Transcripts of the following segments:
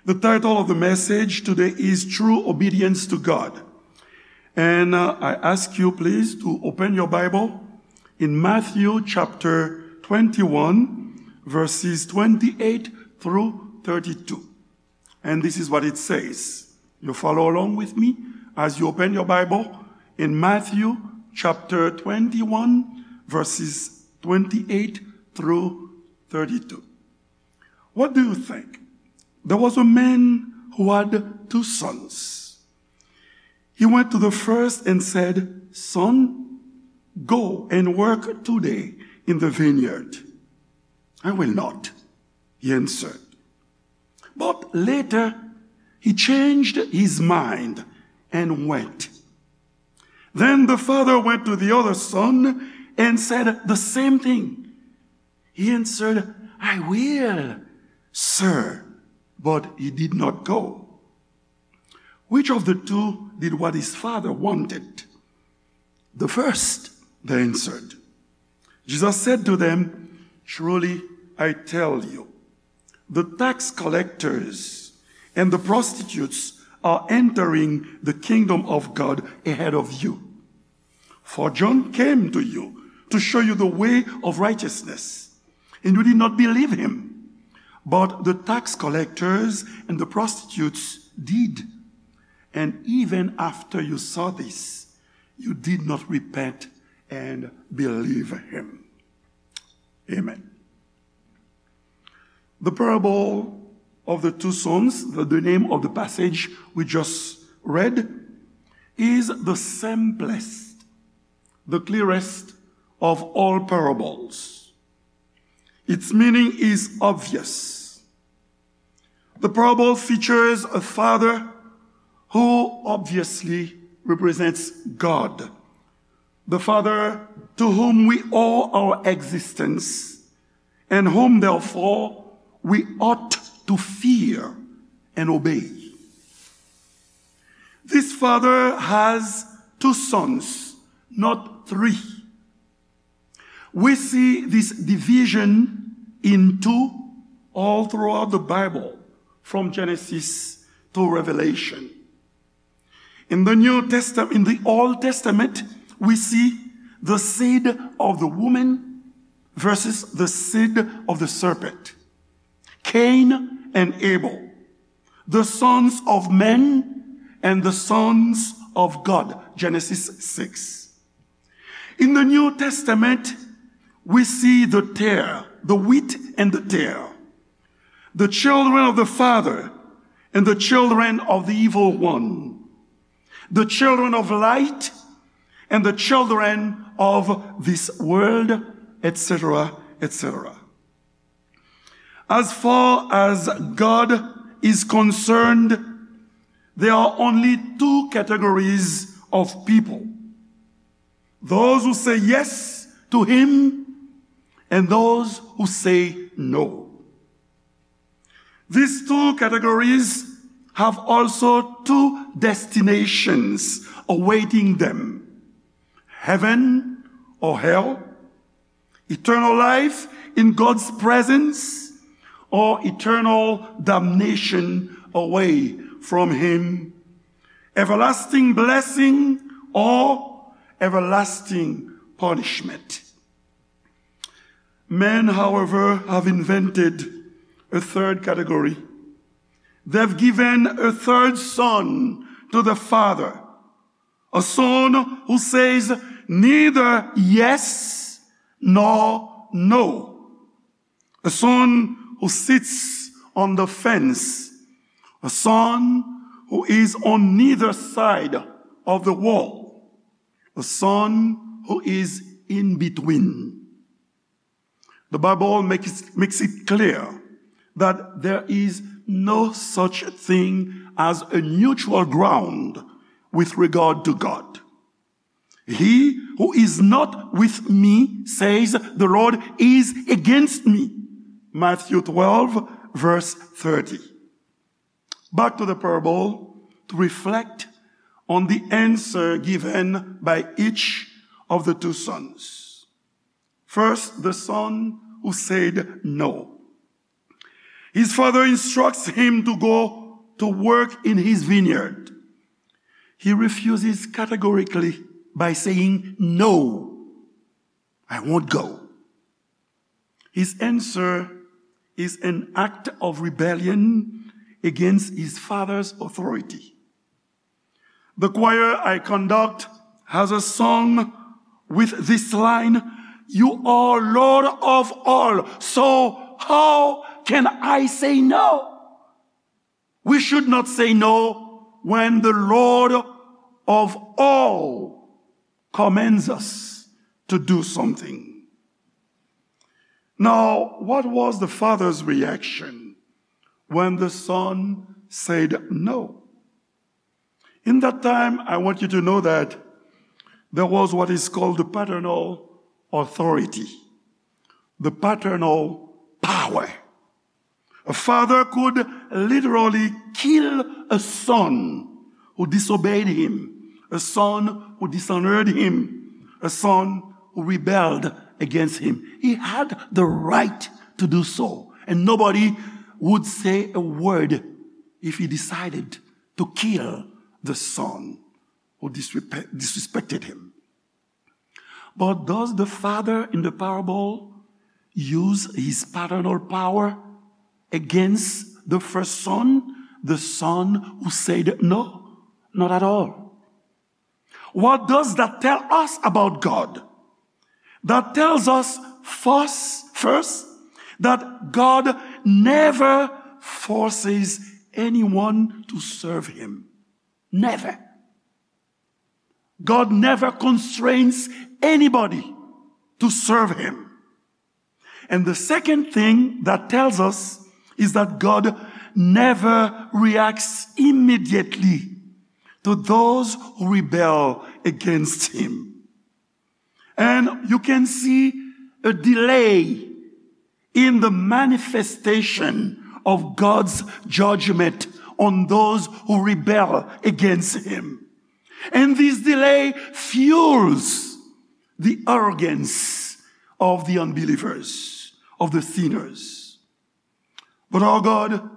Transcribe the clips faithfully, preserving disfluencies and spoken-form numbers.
The title of the message today is True Obedience to God. And uh, I ask you please to open your Bible in Matthew chapter twenty-one, verses twenty-eight through thirty-two. And this is what it says. You follow along with me as you open your Bible in Matthew chapter twenty-one, verses twenty-eight through thirty-two. What do you think? There was a man who had two sons. He went to the first and said, "Son, go and work today in the vineyard." "I will not," he answered. But later, he changed his mind and went. Then the father went to the other son and said the same thing. He answered, "I will, sir," but he did not go. Which of the two did what his father wanted? "The first," they answered. Jesus said to them, "Truly I tell you, the tax collectors and the prostitutes are entering the kingdom of God ahead of you. For John came to you to show you the way of righteousness, and you did not believe him. But the tax collectors and the prostitutes did. And even after you saw this, you did not repent and believe him." Amen. The parable of the two sons, the, the name of the passage we just read, is the simplest, the clearest of all parables. Its meaning is obvious. The parable features a father who obviously represents God, the Father to whom we owe our existence and whom, therefore, we ought to fear and obey. This father has two sons, not three. We see this division in two all throughout the Bible, from Genesis to Revelation. In the New Testament, in the Old Testament, we see the seed of the woman versus the seed of the serpent, Cain and Abel, the sons of men and the sons of God, Genesis six. In the New Testament, we see the tare, the wheat and the tare, the children of the Father and the children of the evil one, the children of light and the children of this world, et cetera, et cetera. As far as God is concerned, there are only two categories of people: those who say yes to him and those who say no. These two categories have also two destinations awaiting them: heaven or hell, eternal life in God's presence, or eternal damnation away from him, everlasting blessing or everlasting punishment. Men, however, have invented a third category. They've given a third son to the Father, a son who says neither yes nor no, a son who sits on the fence, a son who is on neither side of the wall, a son who is in between. The Bible makes, makes it clear that there is no such thing as a neutral ground with regard to God. "He who is not with me, says the Lord, is against me." Matthew twelve, verse thirty. Back to the parable to reflect on the answer given by each of the two sons. First, the son who said no. His father instructs him to go to work in his vineyard. He refuses categorically by saying, "No, I won't go." His answer is an act of rebellion against his father's authority. The choir I conduct has a song with this line, "You are Lord of all, so how can I say no?" We should not say no when the Lord of all commands us to do something. Now, what was the father's reaction when the son said no? In that time, I want you to know that there was what is called the paternal authority, the paternal power. A father could literally kill a son who disobeyed him, a son who dishonored him, a son who rebelled against him. He had the right to do so, and nobody would say a word if he decided to kill the son who disrespe-, disrespected him. But does the father in the parable use his paternal power against the first son, the son who said no? Not at all. What does that tell us about God? That tells us first, first that God never forces anyone to serve him. Never. God never constrains anybody to serve him. And the second thing that tells us is that God never reacts immediately to those who rebel against him. And you can see a delay in the manifestation of God's judgment on those who rebel against him. And this delay fuels the arrogance of the unbelievers, of the sinners. But our God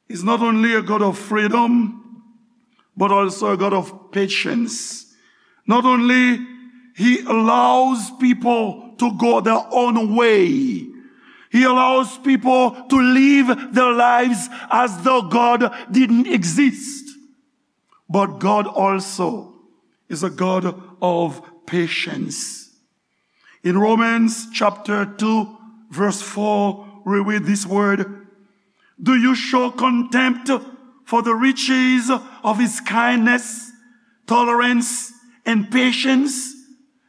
is not only a God of freedom, but also a God of patience. Not only he allows people to go their own way, he allows people to live their lives as though God didn't exist. But God also is a God of patience. In Romans chapter two, verse four, we read this word, "Do you show contempt for the riches of his kindness, tolerance, and patience,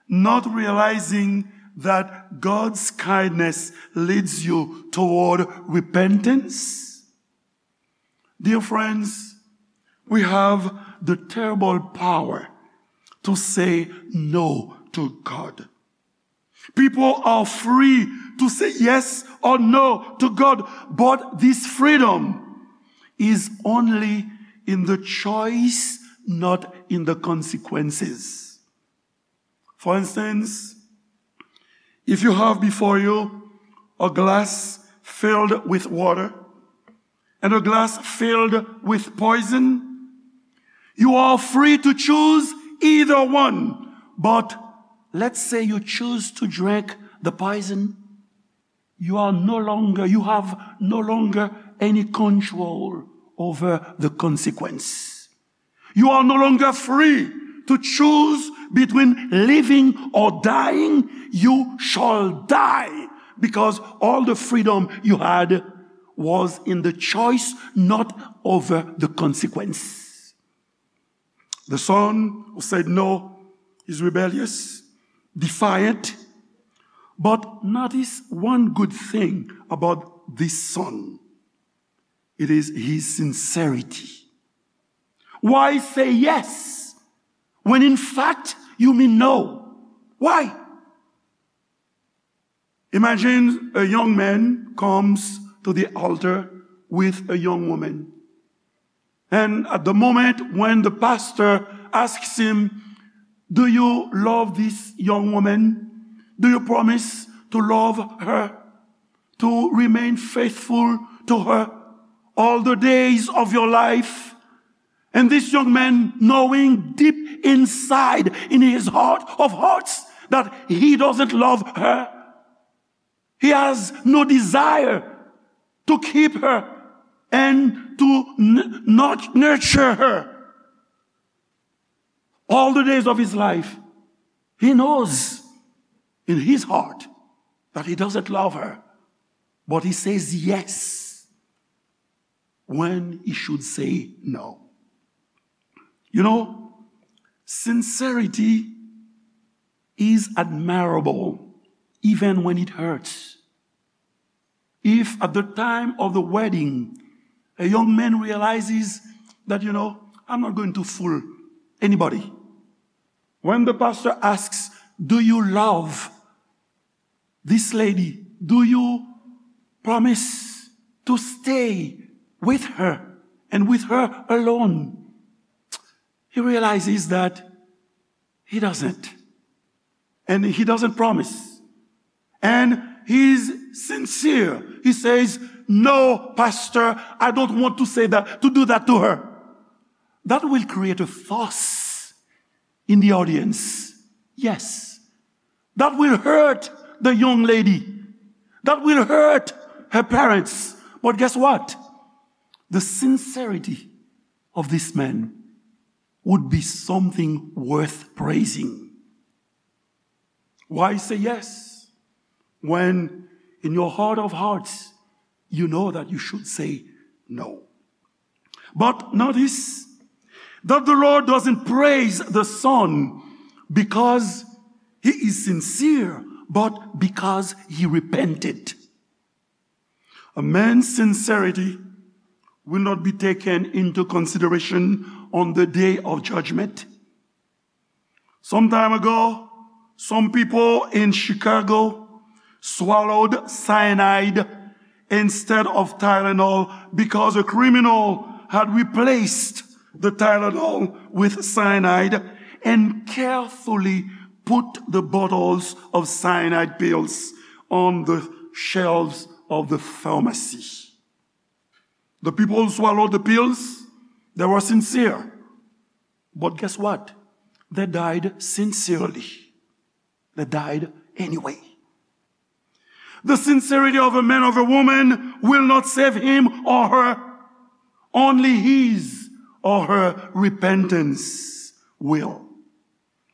not realizing that God's kindness leads you toward repentance?" Dear friends, we have the terrible power to say no to God. People are free to say yes or no to God, but this freedom is only in the choice, not in the consequences. For instance, if you have before you a glass filled with water and a glass filled with poison, you are free to choose either one. But let's say you choose to drink the poison. You are no longer, you have no longer any control over the consequence. You are no longer free to choose between living or dying. You shall die, because all the freedom you had was in the choice, not over the consequence. The son who said no is rebellious, defiant, but notice one good thing about this son. It is his sincerity. Why say yes when in fact you mean no? Why? Imagine a young man comes to the altar with a young woman. And at the moment when the pastor asks him, "Do you love this young woman? Do you promise to love her, to remain faithful to her all the days of your life. And this young man, knowing deep inside in his heart of hearts that he doesn't love her, he has no desire to keep her and to n- not nurture her all the days of his life. He knows in his heart that he doesn't love her, but he says yes when he should say no. You know, sincerity is admirable even when it hurts. If at the time of the wedding, a young man realizes that, you know, I'm not going to fool anybody. When the pastor asks, "Do you love this lady? Do you promise to stay with her and with her alone?" He realizes that he doesn't. And he doesn't promise. And he's sincere. He says, "No, Pastor, I don't want to say that, to do that to her." That will create a fuss in the audience. Yes. That will hurt the young lady. That will hurt her parents. But guess what? The sincerity of this man would be something worth praising. Why say yes when in your heart of hearts you know that you should say no? But notice that the Lord doesn't praise the son because he is sincere, but because he repented. A man's sincerity will not be taken into consideration on the day of judgment. Some time ago, some people in Chicago swallowed cyanide instead of Tylenol because a criminal had replaced the Tylenol with cyanide and carefully put the bottles of cyanide pills on the shelves of the pharmacy. The people who swallowed the pills, they were sincere. But guess what? They died sincerely. They died anyway. The sincerity of a man, of a woman, will not save him or her. Only his or her repentance will.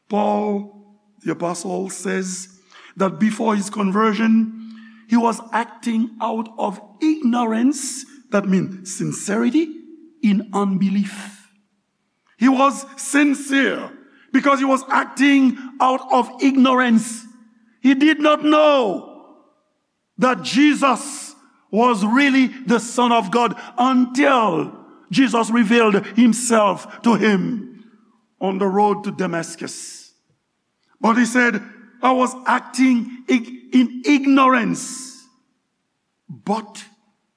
Paul, the apostle, says that before his conversion, he was acting out of ignorance, that means sincerity, in unbelief. He was sincere because he was acting out of ignorance. He did not know that Jesus was really the Son of God until Jesus revealed himself to him on the road to Damascus. But he said, "I was acting ig- in ignorance." But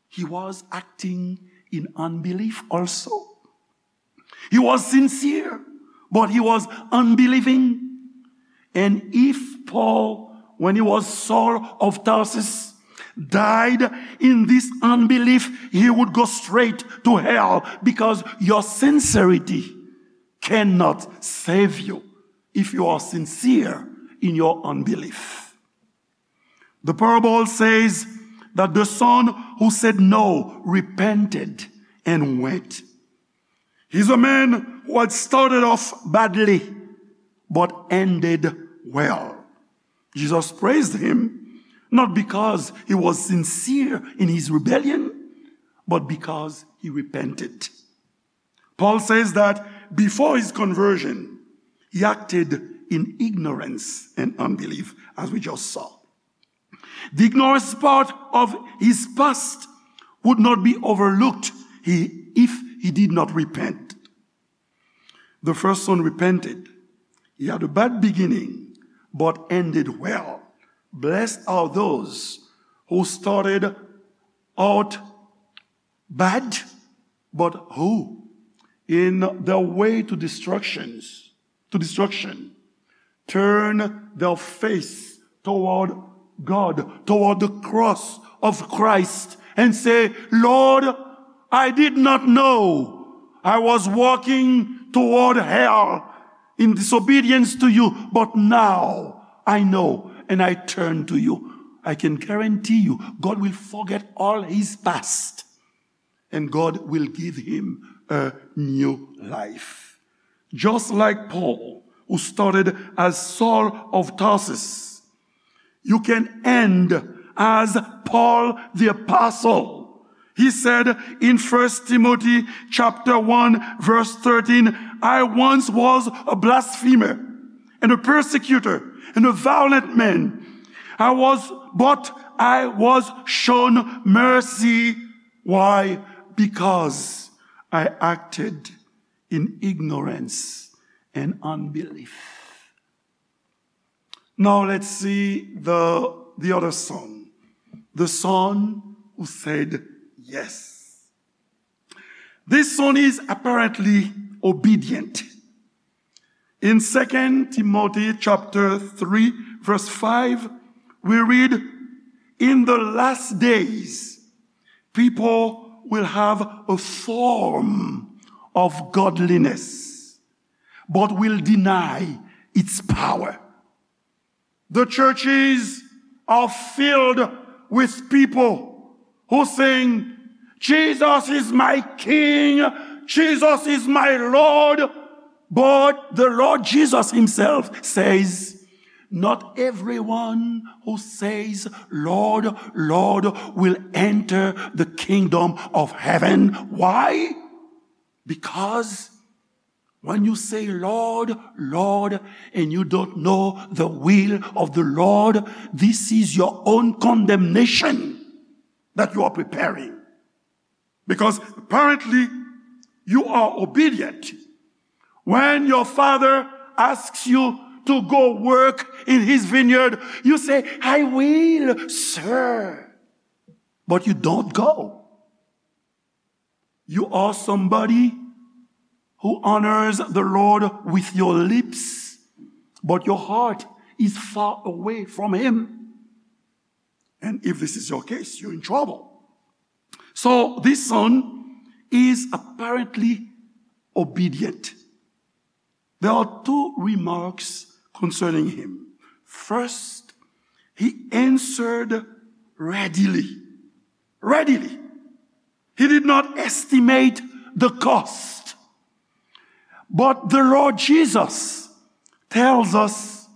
he was acting in unbelief also. He was sincere, but he was unbelieving. And if Paul, when he was Saul of Tarsus, died in this unbelief, he would go straight to hell because your sincerity cannot save you if you are sincere in your unbelief. The parable says that the son who said no repented and went. He's a man who had started off badly but ended well. Jesus praised him not because he was sincere in his rebellion, but because he repented. Paul says that before his conversion, he acted in ignorance and unbelief, as we just saw. The ignorance part of his past would not be overlooked he, if he did not repent. The first son repented. He had a bad beginning, but ended well. Blessed are those who started out bad, but who, in their way to destructions, to destruction, turn their face toward God, toward the cross of Christ, and say, "Lord, I did not know I was walking toward hell in disobedience to you, but now I know and I turn to you." I can guarantee you, God will forget all his past and God will give him a new life. Just like Paul, who started as Saul of Tarsus, you can end as Paul the Apostle. He said in First Timothy chapter one, verse thirteen, "I once was a blasphemer and a persecutor and a violent man. I was, but I was shown mercy." Why? Because I acted in ignorance and unbelief. Now let's see the, the other son. The son who said yes. This son is apparently obedient. In Second Timothy chapter three, verse five, we read, "In the last days, people will have a form of godliness, but will deny its power." The churches are filled with people who sing, "Jesus is my King, Jesus is my Lord." But the Lord Jesus himself says, "Not everyone who says, 'Lord, Lord,' will enter the kingdom of heaven." Why? Because when you say, "Lord, Lord," and you don't know the will of the Lord, this is your own condemnation that you are preparing. Because apparently, you are obedient. When your father asks you to go work in his vineyard, you say, "I will, sir." But you don't go. You are somebody who honors the Lord with your lips, but your heart is far away from him. And if this is your case, you're in trouble. So this son is apparently obedient. There are two remarks concerning him. First, he answered readily. Readily. He did not estimate the cost. But the Lord Jesus tells us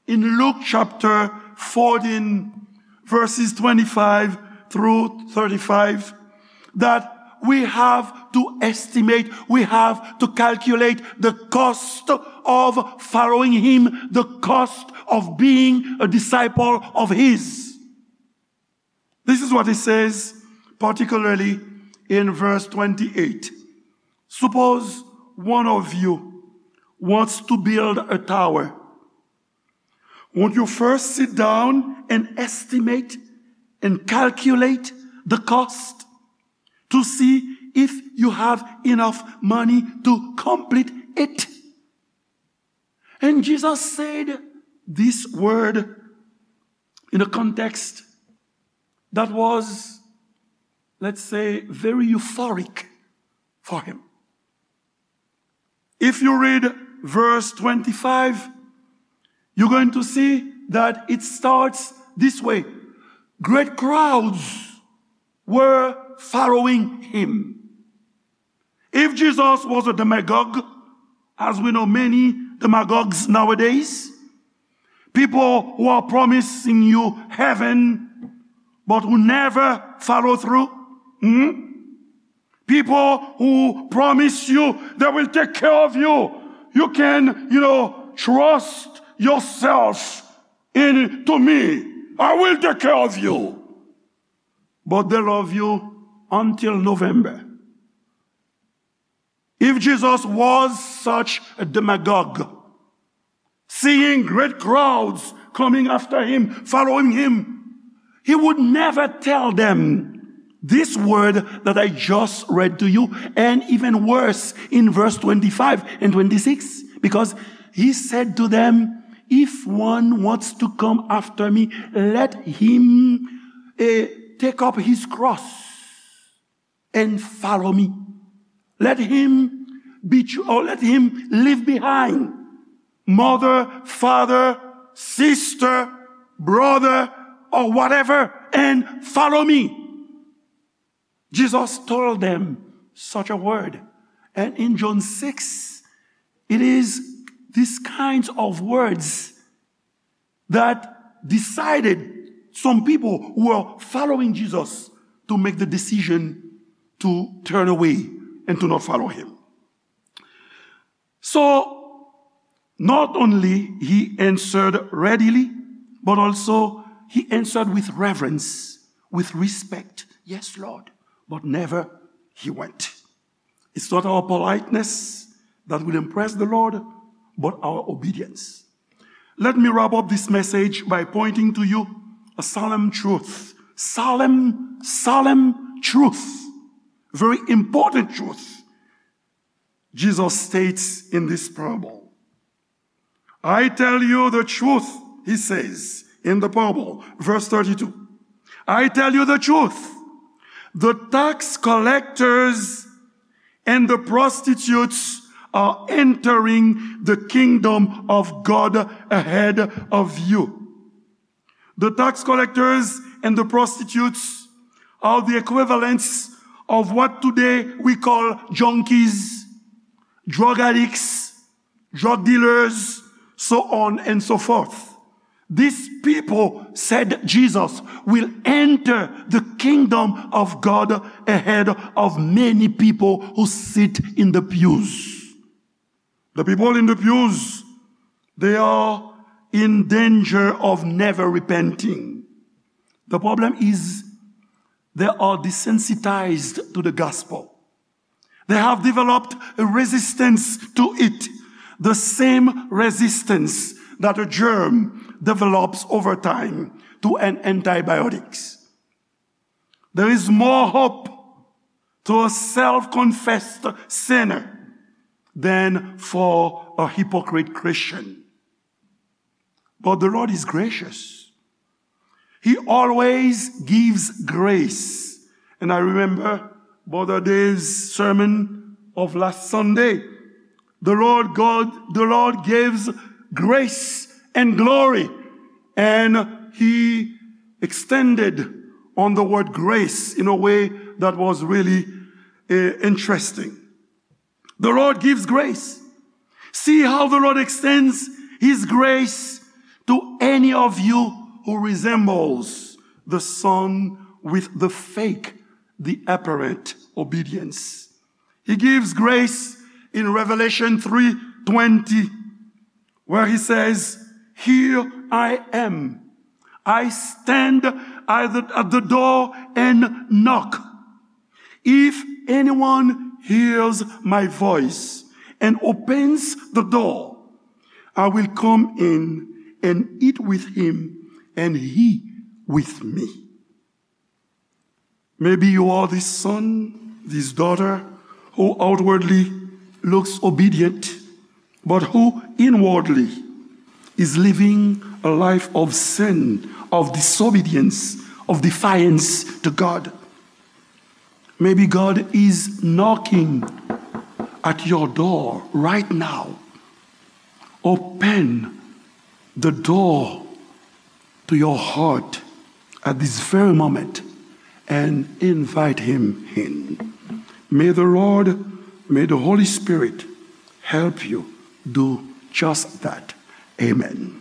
in Luke chapter fourteen, verses twenty-five through thirty-five, that we have to estimate, we have to calculate the cost of following him, the cost of being a disciple of his. This is what he says, particularly in verse twenty-eight. Suppose one of you wants to build a tower. Won't you first sit down and estimate and calculate the cost to see if you have enough money to complete it? And Jesus said this word in a context that was, let's say, very euphoric for him. If you read verse twenty-five, you're going to see that it starts this way. Great crowds were following him. If Jesus was a demagogue, as we know many demagogues nowadays, people who are promising you heaven, but who never follow through, hmm? People who promise you they will take care of you. You can, you know, trust yourself in to me. I will take care of you. But they love you until November. If Jesus was such a demagogue, seeing great crowds coming after him, following him, he would never tell them this word that I just read to you, and even worse, in verse twenty-five and twenty-six, because he said to them, "If one wants to come after me, let him, eh, take up his cross and follow me. Let him be, or let him leave behind mother, father, sister, brother, or whatever, and follow me. Jesus told them such a word. And in John six, it is these kinds of words that decided some people who were following Jesus to make the decision to turn away and to not follow him. So, not only he answered readily, but also he answered with reverence, with respect. "Yes, Lord," but never he went. It's not our politeness that will impress the Lord, but our obedience. Let me wrap up this message by pointing to you a solemn truth. Solemn, solemn truth. Very important truth. Jesus states in this parable, "I tell you the truth," he says in the parable, verse thirty-two. "I tell you the truth. The tax collectors and the prostitutes are entering the kingdom of God ahead of you." The tax collectors and the prostitutes are the equivalents of what today we call junkies, drug addicts, drug dealers, so on and so forth. These people, said Jesus, will enter the kingdom of God ahead of many people who sit in the pews. The people in the pews, they are in danger of never repenting. The problem is they are desensitized to the gospel. They have developed a resistance to it, the same resistance that a germ develops over time to an antibiotics. There is more hope to a self-confessed sinner than for a hypocrite Christian. But the Lord is gracious. He always gives grace. And I remember Brother Dave's sermon of last Sunday. The Lord God, the Lord gives grace and glory. And he extended on the word grace in a way that was really, eh, interesting. The Lord gives grace. See how the Lord extends his grace to any of you who resembles the son with the fake, the apparent obedience. He gives grace in Revelation three twenty, where he says, "Here I am. I stand at the, at the door and knock. If anyone hears my voice and opens the door, I will come in and eat with him and he with me." Maybe you are this son, this daughter, who outwardly looks obedient, but who inwardly is living a life of sin, of disobedience, of defiance to God. Maybe God is knocking at your door right now. Open the door to your heart at this very moment and invite him in. May the Lord, may the Holy Spirit help you do just that. Amen.